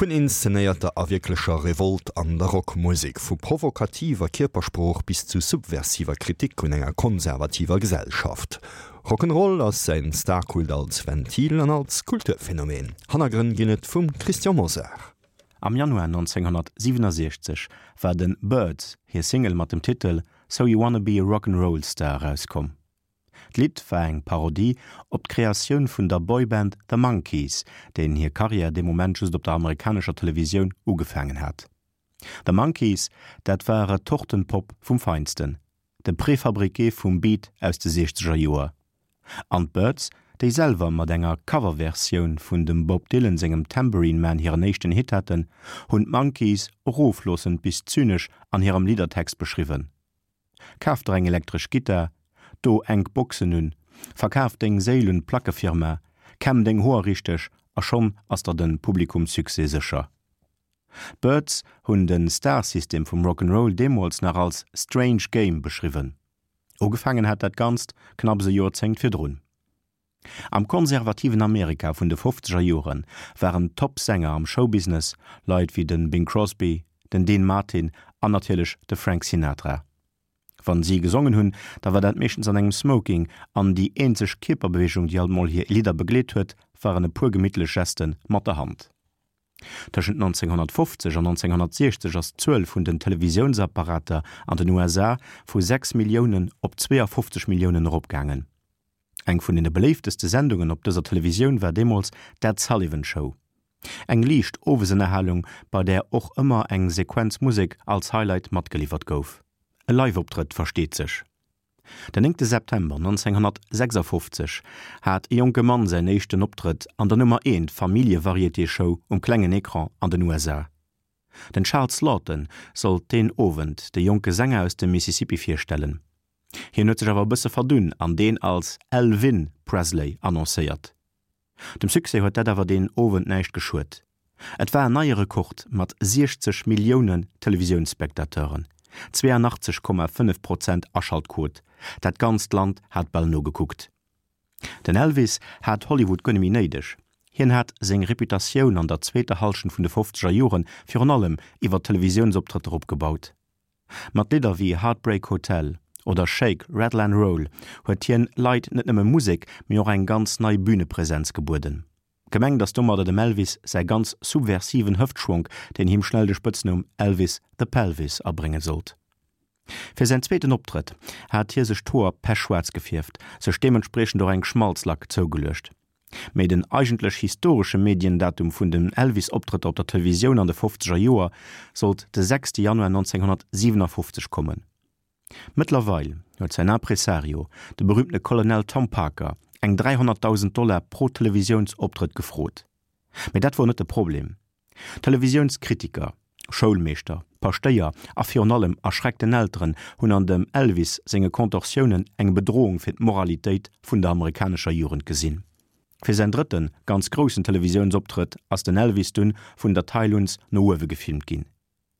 Vun inszenéierter a wierklecher Revolt an der Rockmusek, vu provokativer Kierpersprooch bis zu subversiver Kritik un enger konservativer Gesellschaft. Rock'n'Roll ass säin Starkult als Ventil an als Kulturphänomen. Hannergrënn ginn et vum Christian Mosar. Am Januar 1967 war de Byrds hir Single mat dem Titel So You Wanna Be a Rock 'n' Roll Star erauskomm. D'Lidd war eng Parodie op d'Kreatioun vun der Boyband The Monkees, deenen hir Karriär dee Moment just op der amerikanescher Televisioun ugefaangen hat. The Monkees, dat war Retortenpop vum Feinsten, de Préfabriqué vum Beat aus de siechzeger Joer. An d'Byrds, déi selwer mat enger Coverversioun vun dem Bob Dylan sengem Tambourine Man hiren éischten Hit haten, hunn d'Monkees erofloossend bis zynesch an hirem Liddertext beschriwwen. Kaf der eng elektresch Gittar, do enk Boxen un, verkaf deng Séil un d'Plackefirma, kämm deng Hoer richteg a schonn ass der den Publikumssuccès sécher. D'Byrds hunn den Starsystem vum Rock 'n' Roll deemools nach als strange game beschriwwen. Ugefaangen hat dat Ganzt knapps e Joerzéngt virdrun. Am konservativen Amerika vun de fofzeger Jore waren d'Top-Sänger am Showbusiness Leit wéi de Bing Crosby, den Dean Martin an natierlech de Frank Sinatra. Wann si gesongen hunn, da war dat meeschtens an engem Smoking an déi eenzeg Kierperbeweegung, déi alt mol hir Lidder begleet huet, waren e puer gemittlech Geste mat der Hand. Tëschent 1950 an 1960 ass d'Zuel vun den Televisiounsapparater an den USA vu 6 Milliounen op 52 Milliounen eropgaangen. Eng vun den beléifteste Sendungen op dëser Televisioun war deemools d'Ed Sullivan Show. Eng liicht Owesënnerhalung, bei där och ëmmer eng Sequenz Musek als Highlight matgeliwwert gouf. E Live-Optrëtt, versteet sech. Den 9 September 1956 hat e jonke Mann säin éischten Optrëtt an der Nummer eent Familljevarieté-Show um klengen Ecran an den USA. Den Charles Laughton sollt deen Owend de jonke Sänger aus dem Mississippi virstellen. Hien huet sech awer e bësse verdunn an deen als Elvin Presley annoncéiert. Dem Succès huet dat awer deen Owend näischt geschuet. Et war en neie Rekord mat 60 Milliounen Televisiounsspectateuren, 82,5 Prozent Aschaltquot, dat ganzt Land hat bal nogekuckt. Den Elvis hat Hollywood guer net méi néideg. Hien hat seng Reputatioun an der zweeter Hallschent vun de fofzeger Jore virun allem iwwer Televisiounsoptrëtter opgebaut. Mat Lidder wéi Heartbreak Hotel oder Shake, Rattle and Roll huet hien Leit net nëmme Musek, mee och eng ganz nei Bünepresenz gebueden. Gemengt ass domadder dem Elvis säi ganz subversiven Hëftschwonk, deen him schnell de Spëtznumm Elvis the Pelvis abrénge sollt. Fir säin zweeten Optrëtt hat hie sech d'Hoer pechschwaarz gefierft, sech deementspriechend och eng Schmalzlack zougeluecht. Mee den eigentlech historesche Mediendatum vun den Elvis-Optrëtter op der Televisioun an de fofzeger Joer sollt de sechste Januar 1957 kommen. Mëttlerweil huet säin Impresario, de berüümtene Colonel Tom Parker, eng 300.000 Dollar pro Televisiounsoptrëtt gefrot. Mee dat wor net de Problem. Televisiounskritiker, Schoulmeeschter, Paschtéier a virun allem erschreckten Elteren hunn an dem Elvis senge Kontorsiounen eng Bedrohung fir d'Moralitéit vun der amerikanescher Jugend gesinn. Fir säin drëtte ganz groussen Televisiounsoptrëtt ass den Elvis dunn vun der Tailluns no uewe gefilmt ginn.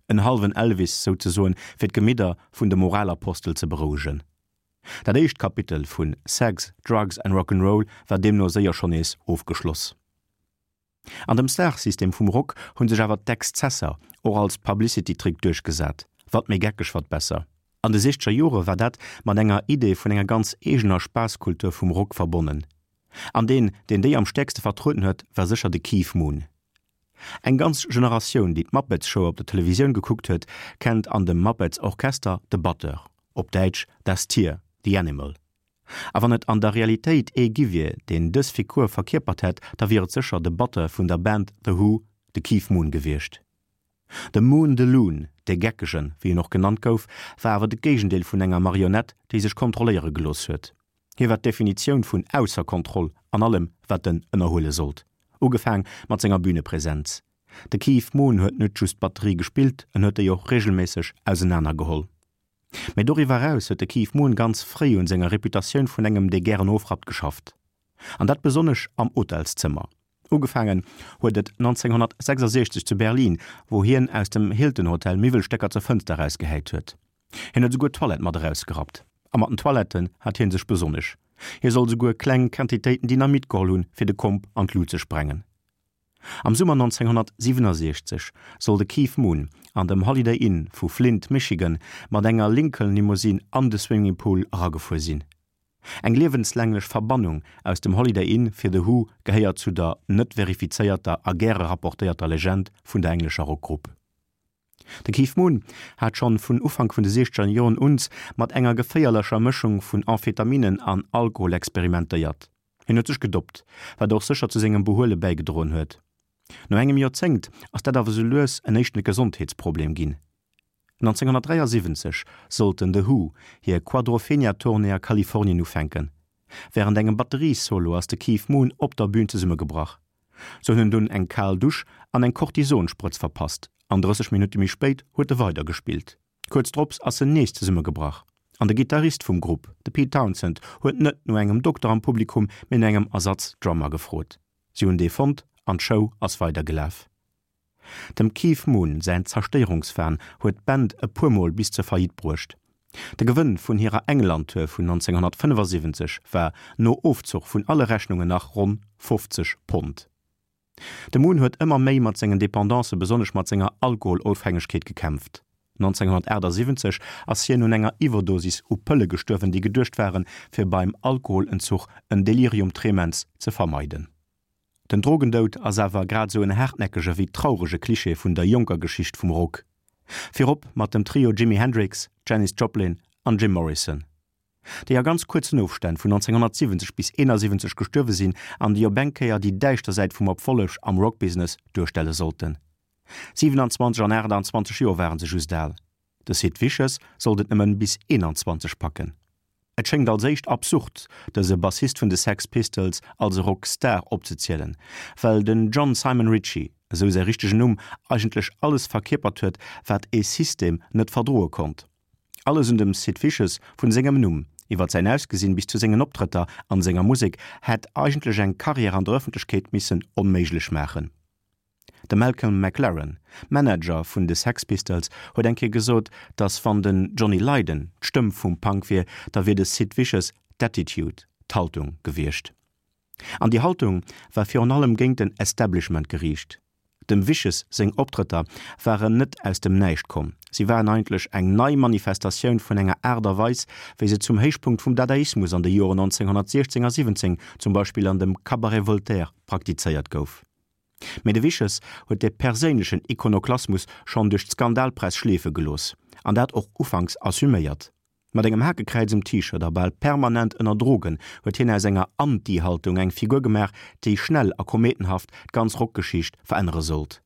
En hallwen Elvis souzesoen, fir d'Gemidder vun de Moralapostel ze berouegen. Dat éischt Kapitel vun Sex, Drugs and Rock'n'Roll war deemno séier schonn nees ofgeschloss. An dem Star-System vum Rock hunn sech awer d'Exzesser och als Publicity-Trick duerchgesat, wat méi geckeg, wat besser. An de siechzeger Jore war dat mat enger Idee vun enger ganz eegener Spaasskultur vum Rock verbonnen. An deen, deen déi am stäerkste vertrueden huet, war sécher de Keith Moon. Eng ganz Generatioun, déi d'Muppets Show op der Televisioun gekuckt huet, kennt an dem Muppets Orchester de Batteur, op Däitsch Das Tier, The Animal. A wann et an der Realitéit ee gi wier, deen dës Figur verkierpert hätt, da wier et sécher de Batteur vun der Band The Who, de Keith Moon gewiescht. De Moon the Loon, de Geckegen, wéi en och genannt gouf, war awer de Géigendeel vun enger Marionett, déi sech kontrolléiere gelooss huet. Hie war d'Definitioun vun ausser Kontroll an allem, wat en ënnerhuele sollt, ugefaang mat senger Bünepresenz. De Keith Moon huet net just d'Batterie gespillt, en huet déi och reegelméisseg ausenanergeholl. Mee doriwwer eraus huet de Keith Moon ganz fréi un senger Reputatioun vun engem dee gären ofrappt geschafft. An dat besonnesch am Hotelszëmmer. Ugefaangen huet et 1966 zu Berlin, wou hien aus dem Hilton Hotel Miwwelstécker zur Fënster erausgehäit huet. Hien huet esouguer d'Toilette mat erausgerappt. A mat den Toiletten hat hie sech besonnesch. Hie soll esouguer kleng Quantitéiten Dynamit geholl hunn, fir de Komp an d'Lut ze sprengen. Am Summer 1967 soll de Keith Moon an dem Holiday Inn vu Flint, Michigan, mat enger Lincoln-Limousine an de Swimmingpool eragefuer sinn. Eng liewenslänglech Verbannung aus dem Holiday Inn fir The Who gehéiert zu der net verifizéierter a gäre rapportéierter Legend vun der englescher Rockgrupp. De Keith Moon hat schonn vun Ufank vun de siechzeger Joren uns mat enger geféierlecher Mëschung vun Amphetaminen an Alkohol experimentéiert. Hien huet sech gedoppt, wat och sécher zu sengem Behuele bäigedroen huet. No engem Joerzéngt ass dat awer sou lues en éischten Gesondheetsproblem ginn. 1973 sollten The Who hir Quadrophenia-Tournée a Kalifornien ufänken. Wärend engem Batteriessolo ass de Keith Moon op der Bün zesummegebrach. Se hunn en dunn eng kal Dusch an eng Kortisonsprëtz verpasst an 30 Minutte méi spéit huet e weider gespillt. Kuerz drops ass en nees zesummegebrach an de Gittarist vum Grupp, de Pete Townshend, huet net no engem Dokter am Publikum, mee no engem Ersatz-Drummer gefrot. Si hunn dee fonnt an d'Show ass weider gelaf. Dem Keith Moon säin Zerstéierungswahn huet d'Band e puer Mol bis zur Faillite bruecht. De Gewënn vun hirer England-Tour vun 1975 war no Ofzuch vun alle Rechnungen nach ronn 50 Pond. De Moon huet ëmmer méi mat sengen Dependancen, besonnesch mat senger Alkoholofhängegkeet gekämpft. 1978 ass hien un enger Iwwerdosis u Pëlle gestuerwen, déi geduecht waren, fir beim Alkoholentzuch en Delirium tremens ze vermeiden. Den Drogendoud ass awer grad esou en haartnäckege wéi traurege Klischee vun der jonker Geschicht vum Rock. Virop mat dem Trio Jimi Hendrix, Janis Joplin an Jim Morrison, déi a ganz kuerzen Ofstänn vun 1970 bis 71 gestuerwe sinn an déi op eng Kéier déi däischter Säit vum Erfolleg am Rockbusiness duerstelle sollten. 27 an 28 Joer ware se just al. De Sid Vicious sollt et nëmmen bis 21 packen. Et schéngt als éischt absurd, dëse Bassist vun de Sex Pistols als e Rock-Star opzezielen, well den John Simon Ritchie, esou säi richtegen Numm, eigentlech alles verkierpert huet, wat ee System net verdroe konnt. Alles un dem Sid Vicious, vun sengem Numm, iwwert säin Ausgesinn bis zu sengen Optrëtter an senger Musek, hätt eigentlech eng Karriär an der Ëffentlechkeet missen onméiglech maachen. De Malcolm McLaren, Manager vun de Sex Pistols, huet eng Kéier gesot, datt wann den Johnny Lydon d'Stëmm vum Punk wier, da wier de Sid Vicious d'Attitude, d'Haltung gewiescht. An déi Haltung war virun allem géint den Establishment geriicht. Dem Vicious seng Optrëtter waren net aus dem Näischt komm, si waren eigentlech eng nei Manifestatioun vun enger Aart a Weis, wéi se zum Héichpunkt vum Dadaismus an de Joren 1916 a 17, zum Beispill an dem Cabaret Voltaire, praktizéiert gouf. Mee de Vicious huet de perséinlechen Ikonoklasmus schonn duerch d'Skandalpress schleefe gelooss, an dat och ufanks assuméiert. Mat engem Hakekräiz um T-Shirt a bal permanent ënner Drogen huet hien aus enger Anti-Haltung eng Figur gemaach, déi schnell a kometenhaft d'ganz Rockgeschicht verännere sollt.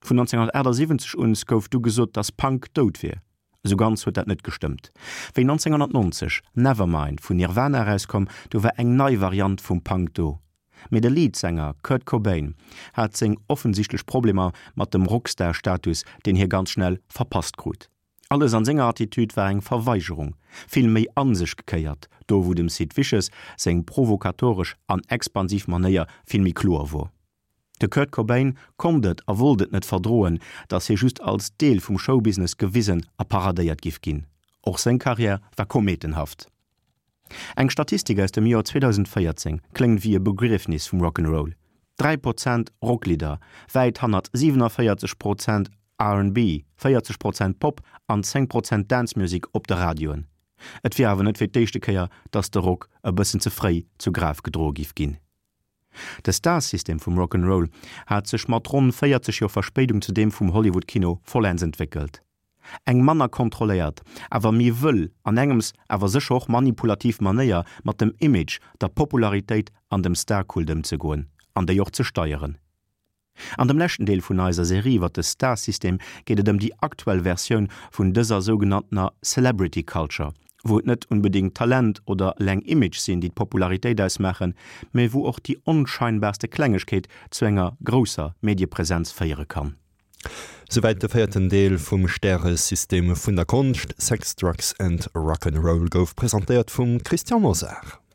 Vun 1978 un gouf du gesot, dass Punk dout wier. Esou ganz huet dat net gestëmmt. Wéi 1990 Nevermind vun Nirvana erauskomm, du war eng nei Variant vum Punk do. Mee de Leadsänger Kurt Cobain hat seng offensichtlech Problemer mat dem Rockstar-Status, deen hie ganz schnell verpasst krut. Alles an senger Attitude war eng Verweigerung, vill méi an sech gekéiert, do wou dem Sid Vicious seng provokatoresch an expansiv Manéier vill méi kloer wor. De Kurt Cobain konnt et a wollt et net verdroen, datt hie just als Deel vum Showbusiness gewisen a paradéiert giff ginn. Och seng Karriär war kometenhaft. Eng Statistik aus dem Joer 2014 kléngt wéi e Begriefnis vum Rock 'n' Roll, 3 Prozent Rocklidder, wäit hannert 47 Prozent RnB, 40 Prozent Pop an 10 Prozent Dance Music op de Radioen. Et wier awer net fir d'éischte Kéier, datt de Rock e bëssen ze fréi zu Graf gedroe giff ginn. De Star-System vum Rock 'n' Roll hat sech mat ronn 40 Joer Verspéidung zu deem vum Hollywood-Kino vollends entwéckelt. Eng manner kontrolléiert, awer méi wëll an engems awer sécher och manipulativ Manéier mat dem Image, der Popularitéit an dem Star-Kult ëmzegoen an déi och ze steieren. An dem leschten Deel vun eiser Serie iwwer de Star-System geet et ëm déi aktuell Versioun vun dëser sougenanntener Celebrity Culture, wou et net unbedéngt Talent oder eleng Image sinn, déi d'Popularitéit ausmaachen, mee wou och déi onscheinbarste Klengegkeet zu enger grousser Mediepresenz féiere kann. Souwäit de véierten Deel vum Stäresystem vun der Konscht. Sex, Drugs and Rock'n'Roll gouf presentéiert vum Christian Mosar.